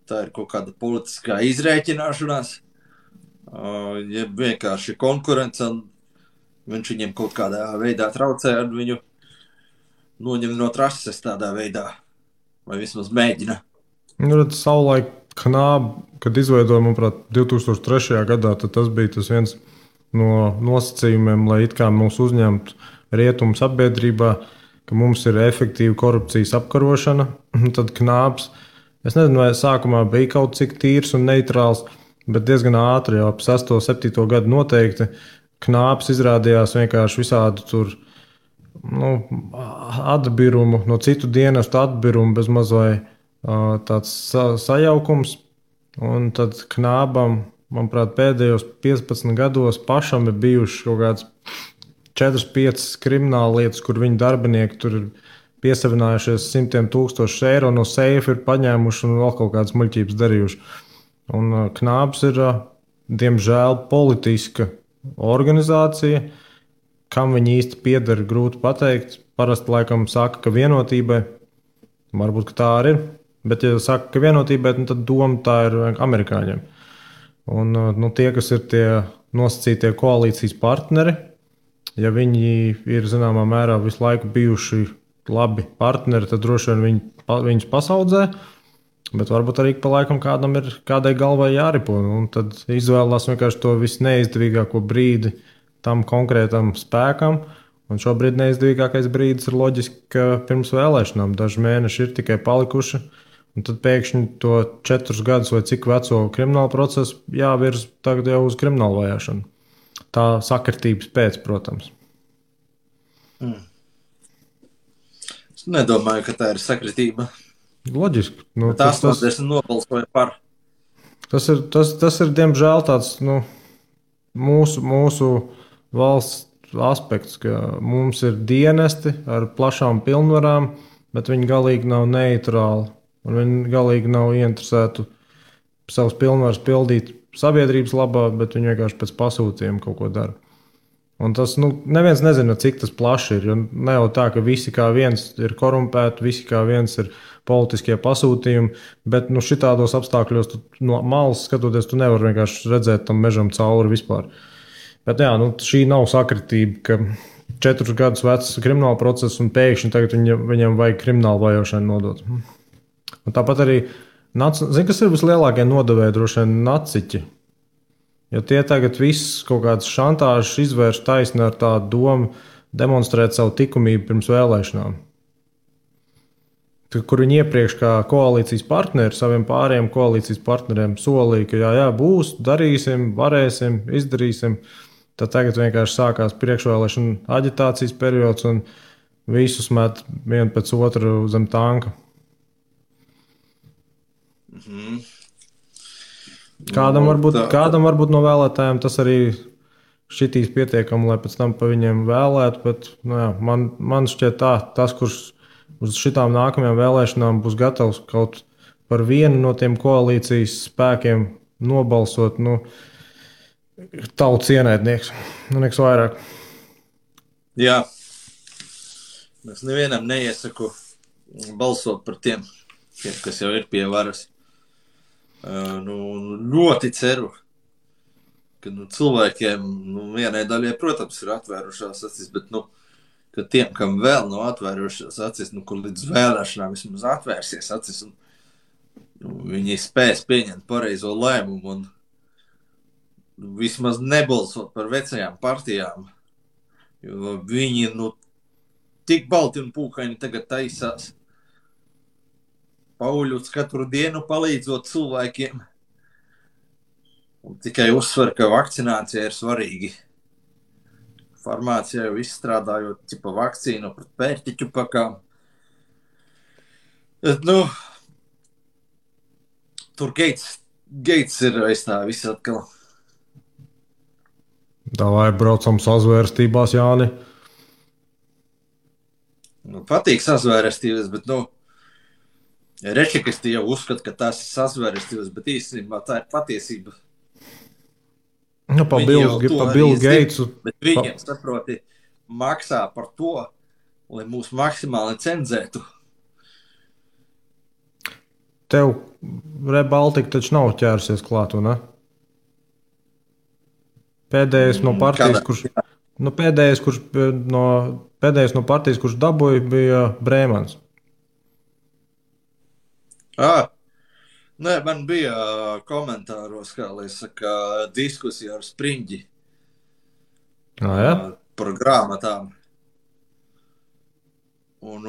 tā ir kaut kāda politiskā izrēķināšanās, ja vienkārši konkurence, un viņš viņiem kaut kādā veidā traucē, un viņu noņem no trases tādā veidā, vai vismaz mēģina. Savulaik Knāba, kad izveidoja, manuprāt, 2003. gadā, tad tas bija tas viens no nosacījumiem, lai it kā mūs uzņemtu rietumu sabiedrībā, ka mums ir efektīva korupcijas apkarošana. Tad Knābs, es nezinu, vai sākumā bija kaut cik tīrs un neitrāls, bet diezgan ātri, jau ap 6. 7. gadu noteikti, Knābs izrādījās vienkārši visādi tur atbirumu, no citu dienestu atbirumu bez mazai tāds sajaukums. Un tad Knābam, manuprāt, pēdējos 15 gados pašam ir bijušas kaut kādas 4-5 krimināla lietas, kur viņa darbinieki tur ir piesavinājušies 100,000 eiro no seifa, ir paņēmuši un vēl kaut kādas muļķības darījuši. Un Knābs ir, diemžēl, politiska organizācija. Kam viņi īsti pieder, grūti pateikt. Parasti laikam saka, ka Vienotībai. Varbūt, ka tā arī ir. Bet, ja saka, ka Vienotībai, tad doma tā ir amerikāņiem. Un tie, kas ir tie nosacītie koalīcijas partneri, ja viņi ir zināmā mērā visu laiku bijuši labi partneri, tad droši vien viņus pasaudzē. Bet varbūt arī pa laikam kādai galvai jāripo. Un tad izvēlās vienkārši to visneizdevīgāko brīdi tam konkrētam spēkam. Un šobrīd neizdevīgākais brīdis ir loģiski, ka pirms vēlēšanām daži mēneši ir tikai palikuši. Un tad pēkšņi to 4 gadus vai cik veco kriminālu procesu jāvirz tagad jau uz kriminālu vajāšanu. Tā sakritības pēc, protams. Es nedomāju, ka tā ir sakritība. Loģiski. Tas nobalsoja par. Tas ir diemžēl tāds mūsu valsts aspekts, ka mums ir dienesti ar plašām pilnvarām, bet viņi galīgi nav neitrāli. Un viņi galīgi nav ieinteresēti savus pilnvarus pildīt sabiedrības labā, bet viņi vienkārši pēc pasūtījuma kaut ko dara. Un tas neviens nezina, cik tas plaši ir. Ne jau tā, ka visi kā viens ir korumpēti, visi kā viens ir politiskie pasūtījumi, bet šitādos apstākļos no malas skatoties, tu nevari vienkārši redzēt tam mežam cauri vispār. Bet jā, šī nav sakritība, ka 4 gadus vecs krimināla process un pēkšņi tagad viņam vajag kriminālu vajāšanu nodot. Un tāpat arī, zini, kas ir vislielākie nodevēji, droši vien naciķi. Jo tie tagad viss kaut kādas šantāžas izvērš taisni ar tādu domu demonstrēt savu likumību pirms vēlēšanām. Kur viņi iepriekš kā koalīcijas partneri saviem pārējiem koalīcijas partneriem solīja, ka jā, būs, darīsim, varēsim, izdarīsim. Tad tagad vienkārši sākās priekšvēlēšana aģitācijas periods un visus met vienu pēc otru zem tanka. Kādam varbūt no vēlētājiem tas arī šitīs pietiekami, lai pēc tam pa viņiem vēlētu, bet man šķiet tas, kurš uz šitām nākamajām vēlēšanām būs gatavs kaut par vienu no tiem koalīcijas spēkiem nobalsot, tautas ienaidnieks, nekas vairāk. Jā, es nevienam neiesaku balsot par tiem, kas jau ir pie varas. Ļoti ceru, ka cilvēkiem, vienai daļai, protams, ir atvērušās acis, bet, ka tiem, kam vēl nav atvērušās acis, kur līdz vēlēšanām vismaz atvērsies acis, un viņi spēs pieņemt pareizo lēmumu un vismaz nebalsot par vecajām partijām, jo viņi, tik balti un pūkaini tagad taisās. Pauļuts katru dienu palīdzot cilvēkiem. Un tikai uzsver, ka vakcinācija ir svarīga. Farmācijā jau izstrādājot vakcīnu pret pērtiķu pakām. Tur Gates ir aiz tā viss atkal. Davai braucam sazvērstībās, Jāni. Patīk sazvērstības, bet, Rečikisti jau uzskata, ka tās ir sazvērstības, bet īstenībā tā ir patiesība. Pa Bill Gatesu. Bet viņiem, saproti, maksā par to, lai mūs maksimāli cenzētu. Tev Rebaltika taču nav ķērsies klāt, ne? Pēdējais no partijas, pēdējais no partijas, kurš dabūja, bija Brēmans. Nē, man bija komentāros, kā lai saka, diskusija ar Spriņģi par grāmatām. Un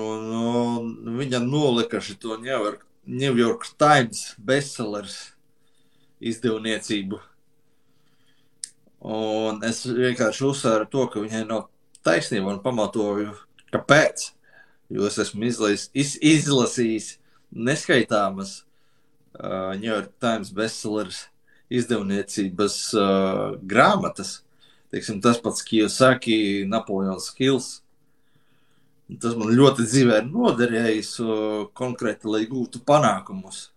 viņa nolika šito New York Times bestsellers izdevniecību. Un es vienkārši uzsvēru to, ka viņai nav taisnība un pamatoju, kāpēc. Jo es esmu izlasījis neskaitāmas New York Times bestsellers izdevniecības grāmatas. Teiksim, tas pats Kiyosaki, Napoleons Hills. Tas man ļoti dzīvē ir noderējis konkrēti, lai gūtu panākumus.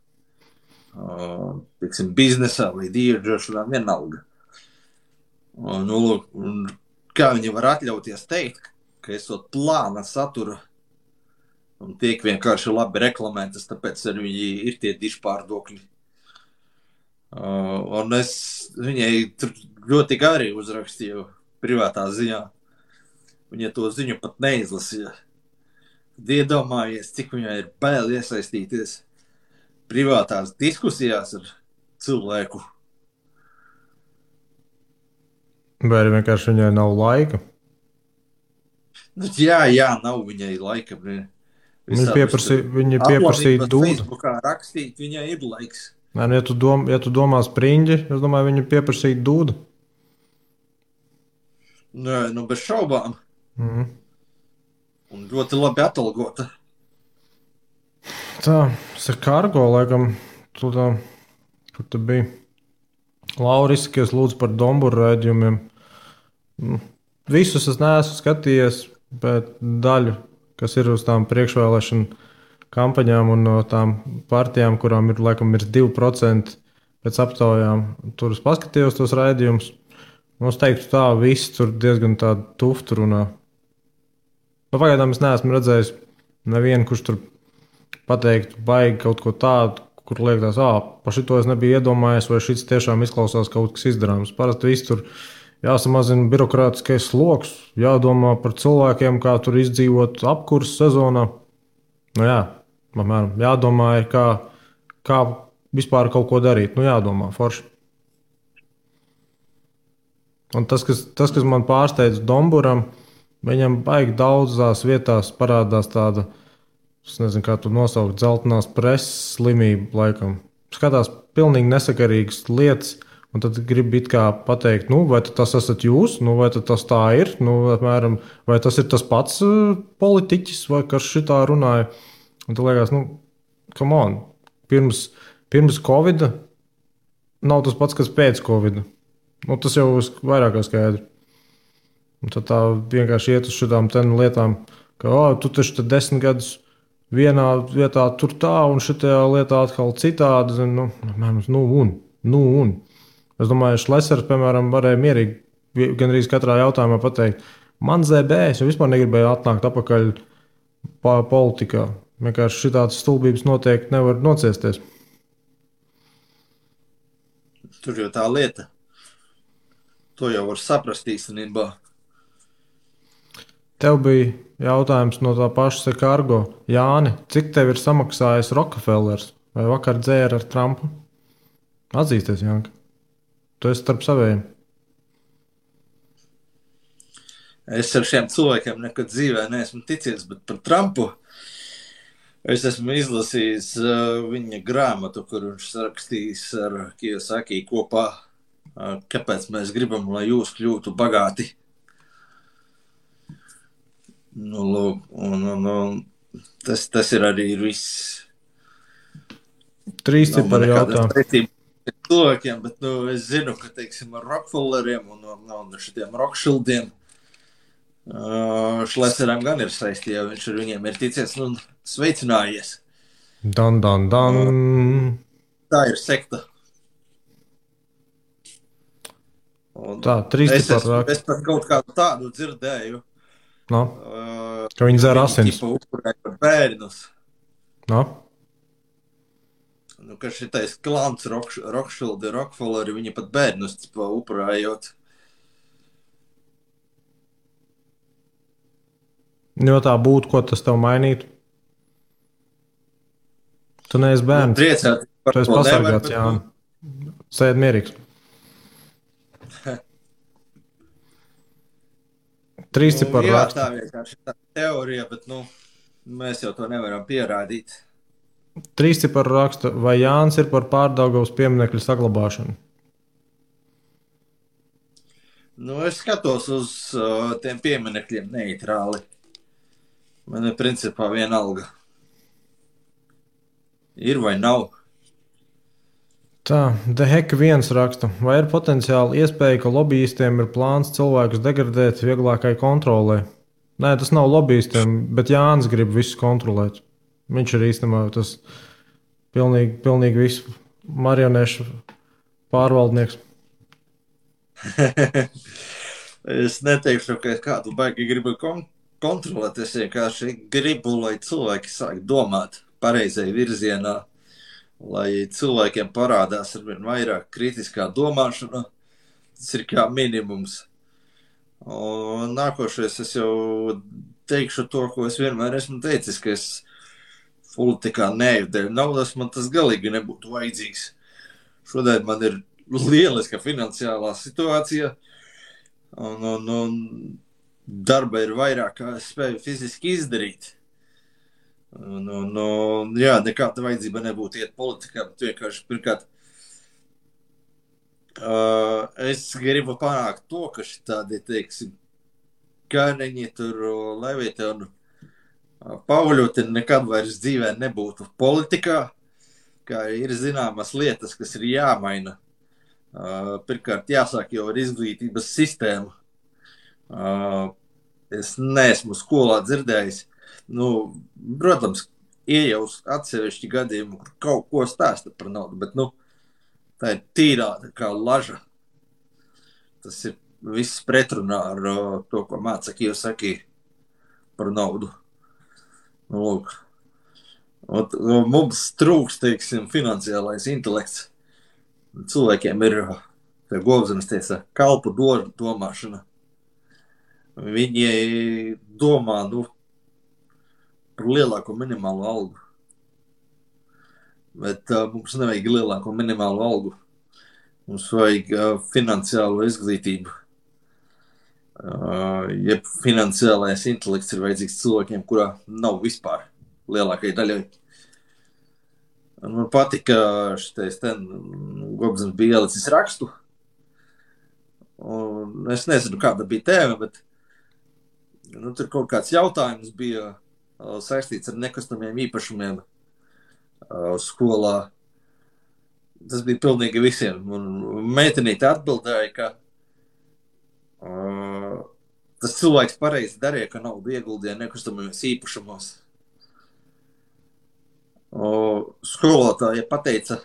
Teiksim, biznesā vai dieģošanā vienalga. Un kā viņi var atļauties teikt, ka esot plāna satura un tiek vienkārši labi reklamētas, tāpēc arī viņi ir tie dišpārdokļi. Un es viņai ļoti gari uzrakstīju privātā ziņā. Viņa to ziņu pat neizlasīja. Iedomājies, cik viņai ir bail iesaistīties privātās diskusijās ar cilvēku. Vai arī vienkārši viņai nav laika? Jā, nav viņai laika. Viņa pieprasīja dūdu. Facebookā rakstīt, viņai ir laiks. Nē, ja tu domā Spriņģi, es domāju, viņa pieprasīja dūdu. Nē, bez šaubām. Un ļoti labi atalgota. Tā, Kargo, laikam, kur tu biji. Lauris, kas lūdzu par Domburu raidījumiem. Visus es neesmu skatījies, bet daļu, kas ir uz tām priekšvēlēšanu kampaņām un no tām partijām, kurām ir, laikam, ir 2% pēc aptaujām, tur es paskatījos tos raidījumus. Es teiktu tā, viss tur diezgan tādu tuftu runā. Pagaidām es neesmu redzējis nevienu, kurš tur pateiktu baigi kaut ko tādu, kur liekas, par šito es nebiju iedomājies, vai šis tiešām izklausās kaut kas izdarāms. Parasti viss tur jāsamazina birokrātiskais sloks, jādomā par cilvēkiem, kā tur izdzīvot apkurses sezonā. Apmēram, jādomā ir, kā vispār kaut ko darīt. Jādomā, forši. Un tas, kas man pārsteidz Domburam, viņam baigi daudzās vietās parādās tāda, es nezinu, kā tu nosaukt, dzeltenās preses slimība laikam. Skatās pilnīgi nesakarīgas lietas, un tad grib it kā pateikt, vai tas esat jūs, vai tas tā ir, apmēram, vai tas ir tas pats politiķis, vai kas šitā runāja. Un tu liekas, come on, pirms Covida nav tas pats, kas pēc Covida. Tas jau vairāk kā skaidrs. Un tad tā vienkārši iet uz šādām lietām, ka, tu taču te 10 gadus vienā vietā tur tā, un šitajā lietā atkal citādi. Un. Es domāju, Šlesers, piemēram, varēja mierīgi gandrīz katrā jautājumā pateikt, man ZB, es jau vispār negribēju atnākt atpakaļ politikā. Vienkārši šitādas stulbības noteikti nevar nociesties. Tur jau tā lieta. To jau var saprast īstenībā. Tev bija jautājums no tā paša Sekārgo. Jāni, cik tev ir samaksājis Rockefellers vai vakar dzēra ar Trumpu? Atzīsties, Janka. Tu esi starp saviem. Es ar šiem cilvēkiem nekad dzīvē neesmu ticies, bet par Trumpu es esmu izlasījis viņa grāmatu, kur viņš rakstījis ar Kiyosaki kopā, kāpēc mēs gribam, lai jūs kļūtu bagāti. Tas ir arī viss. 3 cipari jautājumi. Cilvēkiem, bet es zinu, ka, teiksim, ar Rockefelleriem un šitiem Rothschildiem Šleseram gan ir saistīja, jo viņš ar viņiem ir ticies un sveicinājies. Dan. Tā ir sekta. Un tā, 3 cipari raksta. Es pat kaut kādu tādu dzirdēju. No. Ka viņi dzer asins. Viņi upurēja par bērnus. No. Ka šitais klants Rothschildi, Rockefelleri, viņi pat bērnus upurējot. Jo tā būtu, ko tas tev mainītu? Tu neesi bērns. Priecāt par tu esi to pasargāts, jā. Sēd mierīgs. 3 cipari jā, raksta. tā vienkārši tā teorija, bet mēs jau to nevaram pierādīt. 3 cipari raksta, vai Jānis ir par Pārdaugavas pieminekļu saglabāšanu? Es skatos uz tiem pieminekļiem neitrāli. Man ir principā vienalga. Ir vai nav? Tā, Deheka 1 raksta, vai ir potenciāli iespēja, ka lobbyistiem ir plāns cilvēkus degradēt vieglākai kontrolē? Nē, tas nav lobbyistiem, bet Jānis grib visu kontrolēt. Viņš ir īstenībā tas pilnīgi visu marionešu pārvaldnieks. Es neteikšu, ka es kādu baigi gribu kontrolēt. Es vienkārši gribu, lai cilvēki sāk domāt pareizai virzienā, lai cilvēkiem parādās arvien vairāk kritiskā domāšana. Tas ir kā minimums. Un nākošais es jau teikšu to, ko es vienmēr esmu teicis, ka es politikā neeju dēļ naudas, man tas galīgi nebūtu vajadzīgs. Šodien man ir lieliska finansiālā situācija, un darba ir vairāk, kā es spēju fiziski izdarīt. Jā, nekāda vajadzība nebūtu iet politikā, bet vienkārši pirmkārt es gribu panākt to, ka šitādi, teiksim, Kāneņi tur, Levita un Pauļuti nekad vairs dzīvē nebūtu politikā, kā ir zināmas lietas, kas ir jāmaina. Pirmkārt, jāsāk jau ar izglītības sistēmu. Es neesmu skolā dzirdējis. Protams, iejaus atsevišķi gadījumi, kur kaut ko stāsta par naudu, bet, tā ir tīrā kā laža. Tas ir viss pretrunā ar to, ko māca Kiyosaki par naudu. Lūk. Mums trūks, teiksim, finansiālais intelekts. Cilvēkiem ir, kā Govzemes teica, kalpu domāšana. Viņi domā, par lielāko minimālo algu. Bet mums nevajag lielāko minimālo algu. Mums vajag finansiālo izglītību. Ja finansiālais intelekts ir vajadzīgs cilvēkiem, kurā nav vispār lielākai daļai. Man patika šitais Govzemes bija ielicis rakstu. Un es nezinu, kāda bija tēma, bet tur kaut kāds jautājums bija saistīts ar nekustamiem īpašumiem skolā. Tas bija pilnīgi visiem. Un meitenīte atbildēja, ka tas cilvēks pareizi darīja, ka naudu ieguldīja nekustamajos īpašumos. Skolotāja pateica,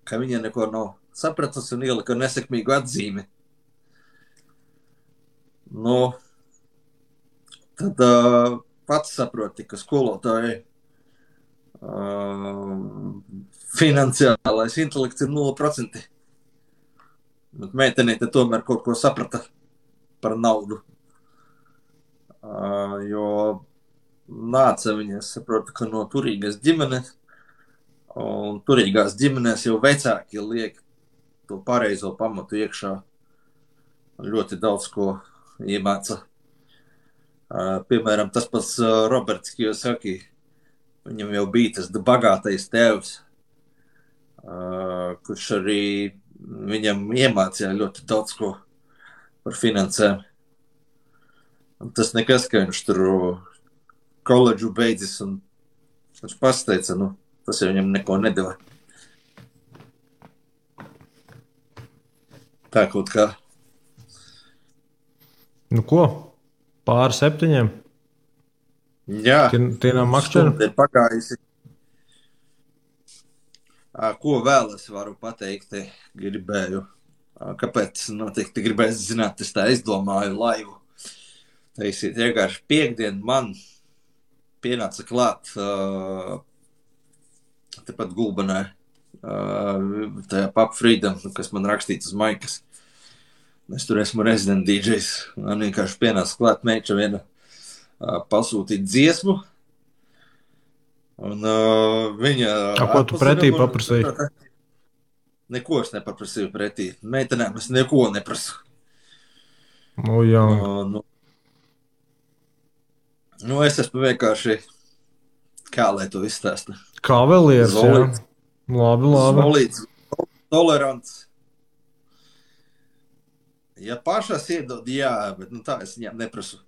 ka viņa neko nav sapratusi un ielika nesekmīgu atzīmi. Nu, tad pats saproti, ka skolotāji finansiālais intelekts ir 0%. Bet meitenīte tomēr kaut ko saprata par naudu. Jo nāca viņa, es saprotu, ka no turīgas ģimenes, un turīgās ģimenēs jau vecāki liek to pareizo pamatu iekšā. Ļoti daudz ko iemāca. Piemēram, tas pats Roberts Kiyosaki, viņam jau bija tas bagātais tēvs, kurš arī viņam iemācīja ļoti daudz ko par finansēm. Un tas nekas, ka viņš tur koledžu beidzis, un viņš pasteica, tas jau viņam neko nedeva. Tā kaut kā. Nu ko? Pāri 7? Jā. Tie nav makšķeri? Stunda ir pagājusi. Ko vēl es varu pateikt, gribēju. Kāpēc noteikti gribēju zināt, es tā izdomāju laivu. Taisīt vienkārši piekdien man pienāca klāt tepat Gulbenē, tajā Pub Freedom, kas man rakstīts uz maikas. Es tur esmu resident DJs. Man vienkārši pienāca klāt meiča viena pasūtīt dziesmu. Un viņa... Ko tu pretī paprasīji? Neko es nepaprasīju pretī. Meitenēm es neko neprasu. Jā. Es esmu vienkārši, kā lai to izstāsta? Kavalieris, jā. Labi. Solīts, tolerants. Ja pašas iedod, jā, bet tā es viņām neprasu.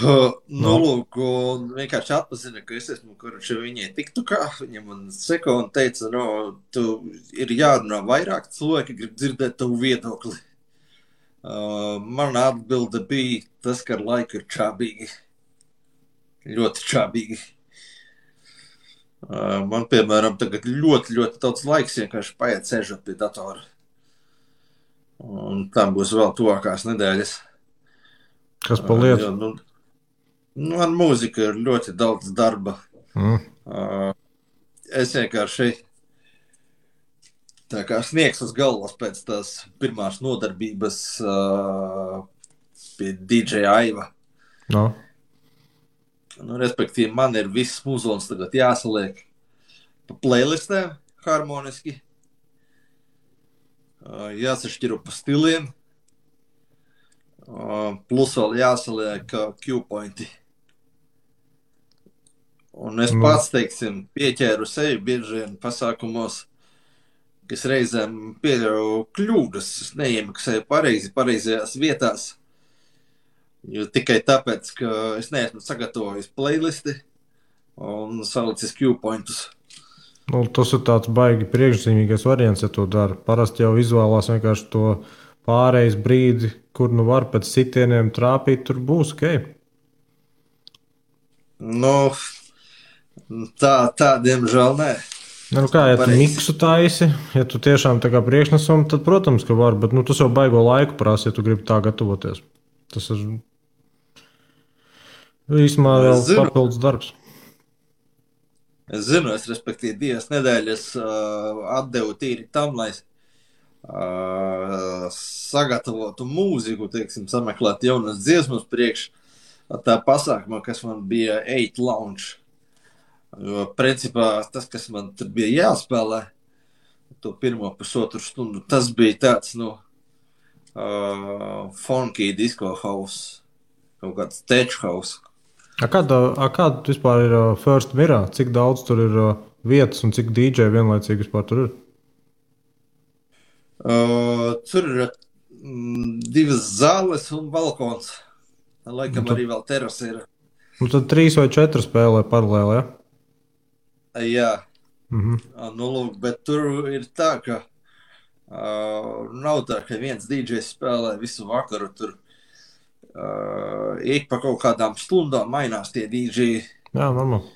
Lūk, un vienkārši atpazina, ka es esmu, kurš viņai tiktukā, viņa man seko un teica, tu ir jārunā vairāk, cilvēki grib dzirdēt tavu viedokli. Mana atbilde bija tas, ka ar laiku ir čābīgi. Ļoti čābīgi. Man, piemēram, tagad ļoti, ļoti daudz laiks vienkārši paiet sēžot pie datora. Un tam būs vēl tuvākās nedēļas. Kas pa lietu? Ar mūziku ir ļoti daudz darba. Es vienkārši tā kā sniegs uz galvas pēc tās pirmās nodarbības pie DJ Aiva. No. Respektīvi, man ir viss muzols tagad jāsaliek pa playlistēm harmoniski. Jāsašķiro pa stiliem. Plus vēl jāsaliek Q-pointi. Un es pats, teiksim, pieķēru sevi bieži vien pasākumos, kas reizēm pieļauju kļūdas. Es neiemaksēju pareizajās vietās. Jo tikai tāpēc, ka es neesmu sagatavojis playlisti un salicis Q-pointus. Tas ir tāds baigi priekšzīmīgais variants, ja to dara. Parasti jau izvēlās vienkārši to pārejas brīdi, kur var pēc sitieniem trāpīt, tur būs, ok? Tā diemžēl nē. Kā, ja tu miksu taisi, ja tu tiešām tā kā priekšnesam, tad, protams, ka var, bet tas jau baigo laiku prasa, ja tu gribi tā gatavoties. Tas ir īstumā vēl papildus darbs. Es zinu, respektīvi 2 nedēļas atdevu tīri tam, lai sagatavotu mūziku, teiksim, sameklēt jaunas dziesmas priekš tā pasākumā, kas man bija 8 Lounge. Jo, principā, tas, kas man tur bija jāspēlē, to pirmo pusotru stundu, tas bija tāds, funky disco house, kaut kāds tech house. Kāda vispār ir First Mirrā? Cik daudz tur ir vietas un cik DJ vienlaicīgi vispār tur ir? Tur ir 2 zāles un balkons. Laikam arī vēl terasa ir. Tad 3 vai 4 spēlē paralēli, ja? Jā. Lūk, bet tur ir tā, ka nav tā, ka viens DJs spēlē visu vakaru tur Ik pa kaut kādām stundām mainās tie DJ. Jā, normāli.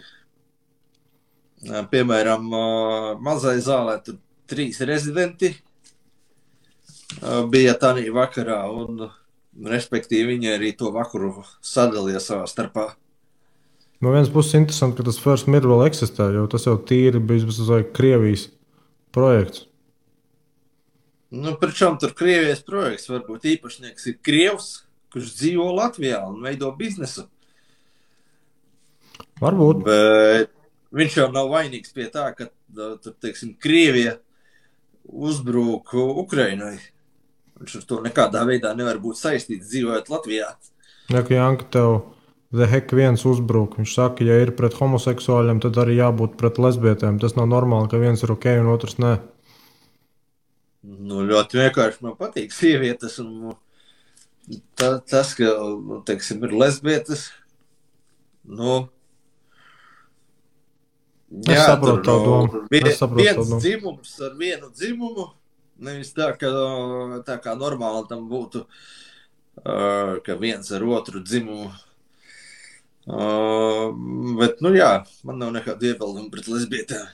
Piemēram, mazai zālē tur 3 rezidenti bija tādā vakarā, un respektīvi viņi arī to vakaru sadalīja savā starpā. No vienas puses interesanti, ka tas First Mirror vēl eksistē, jo tas jau tīri bija Krievijas projekts. Nu, pričom tur Krievijas projekts, varbūt īpašnieks ir Krievs, kurš dzīvo Latvijā un veido biznesu. Varbūt. Bet viņš jau nav vainīgs pie tā, ka, tur, teiksim, Krievija uzbrūk Ukrainai. Viņš ar to nekādā veidā nevar būt saistīts dzīvojot Latvijā. Ja, ka Janka tev The Heck viens uzbruk, viņš saka, ja ir pret homoseksuāļiem, tad arī jābūt pret lesbietēm. Tas nav normāli, ka viens ir ok un otrs nē. Nu, ļoti vienkārši man patīk sievietes un tas, ka, teiksim, ir lesbietes, nu, Es saprotu tavu domu. Viens dzimums ar vienu dzimumu, nevis tā kā normāli tam būtu, ka viens ar otru dzimumu. Bet, nu jā, man nav nekādu iebildumu pret lesbietēm.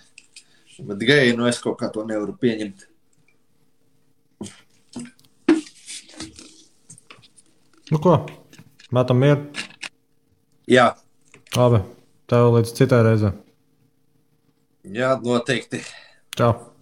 Bet geji, nu es kaut kā to nevaru pieņemt. Nu ko, metam mieru? Jā. Labi, tev līdz citai reizē. Jā, noteikti. Čau.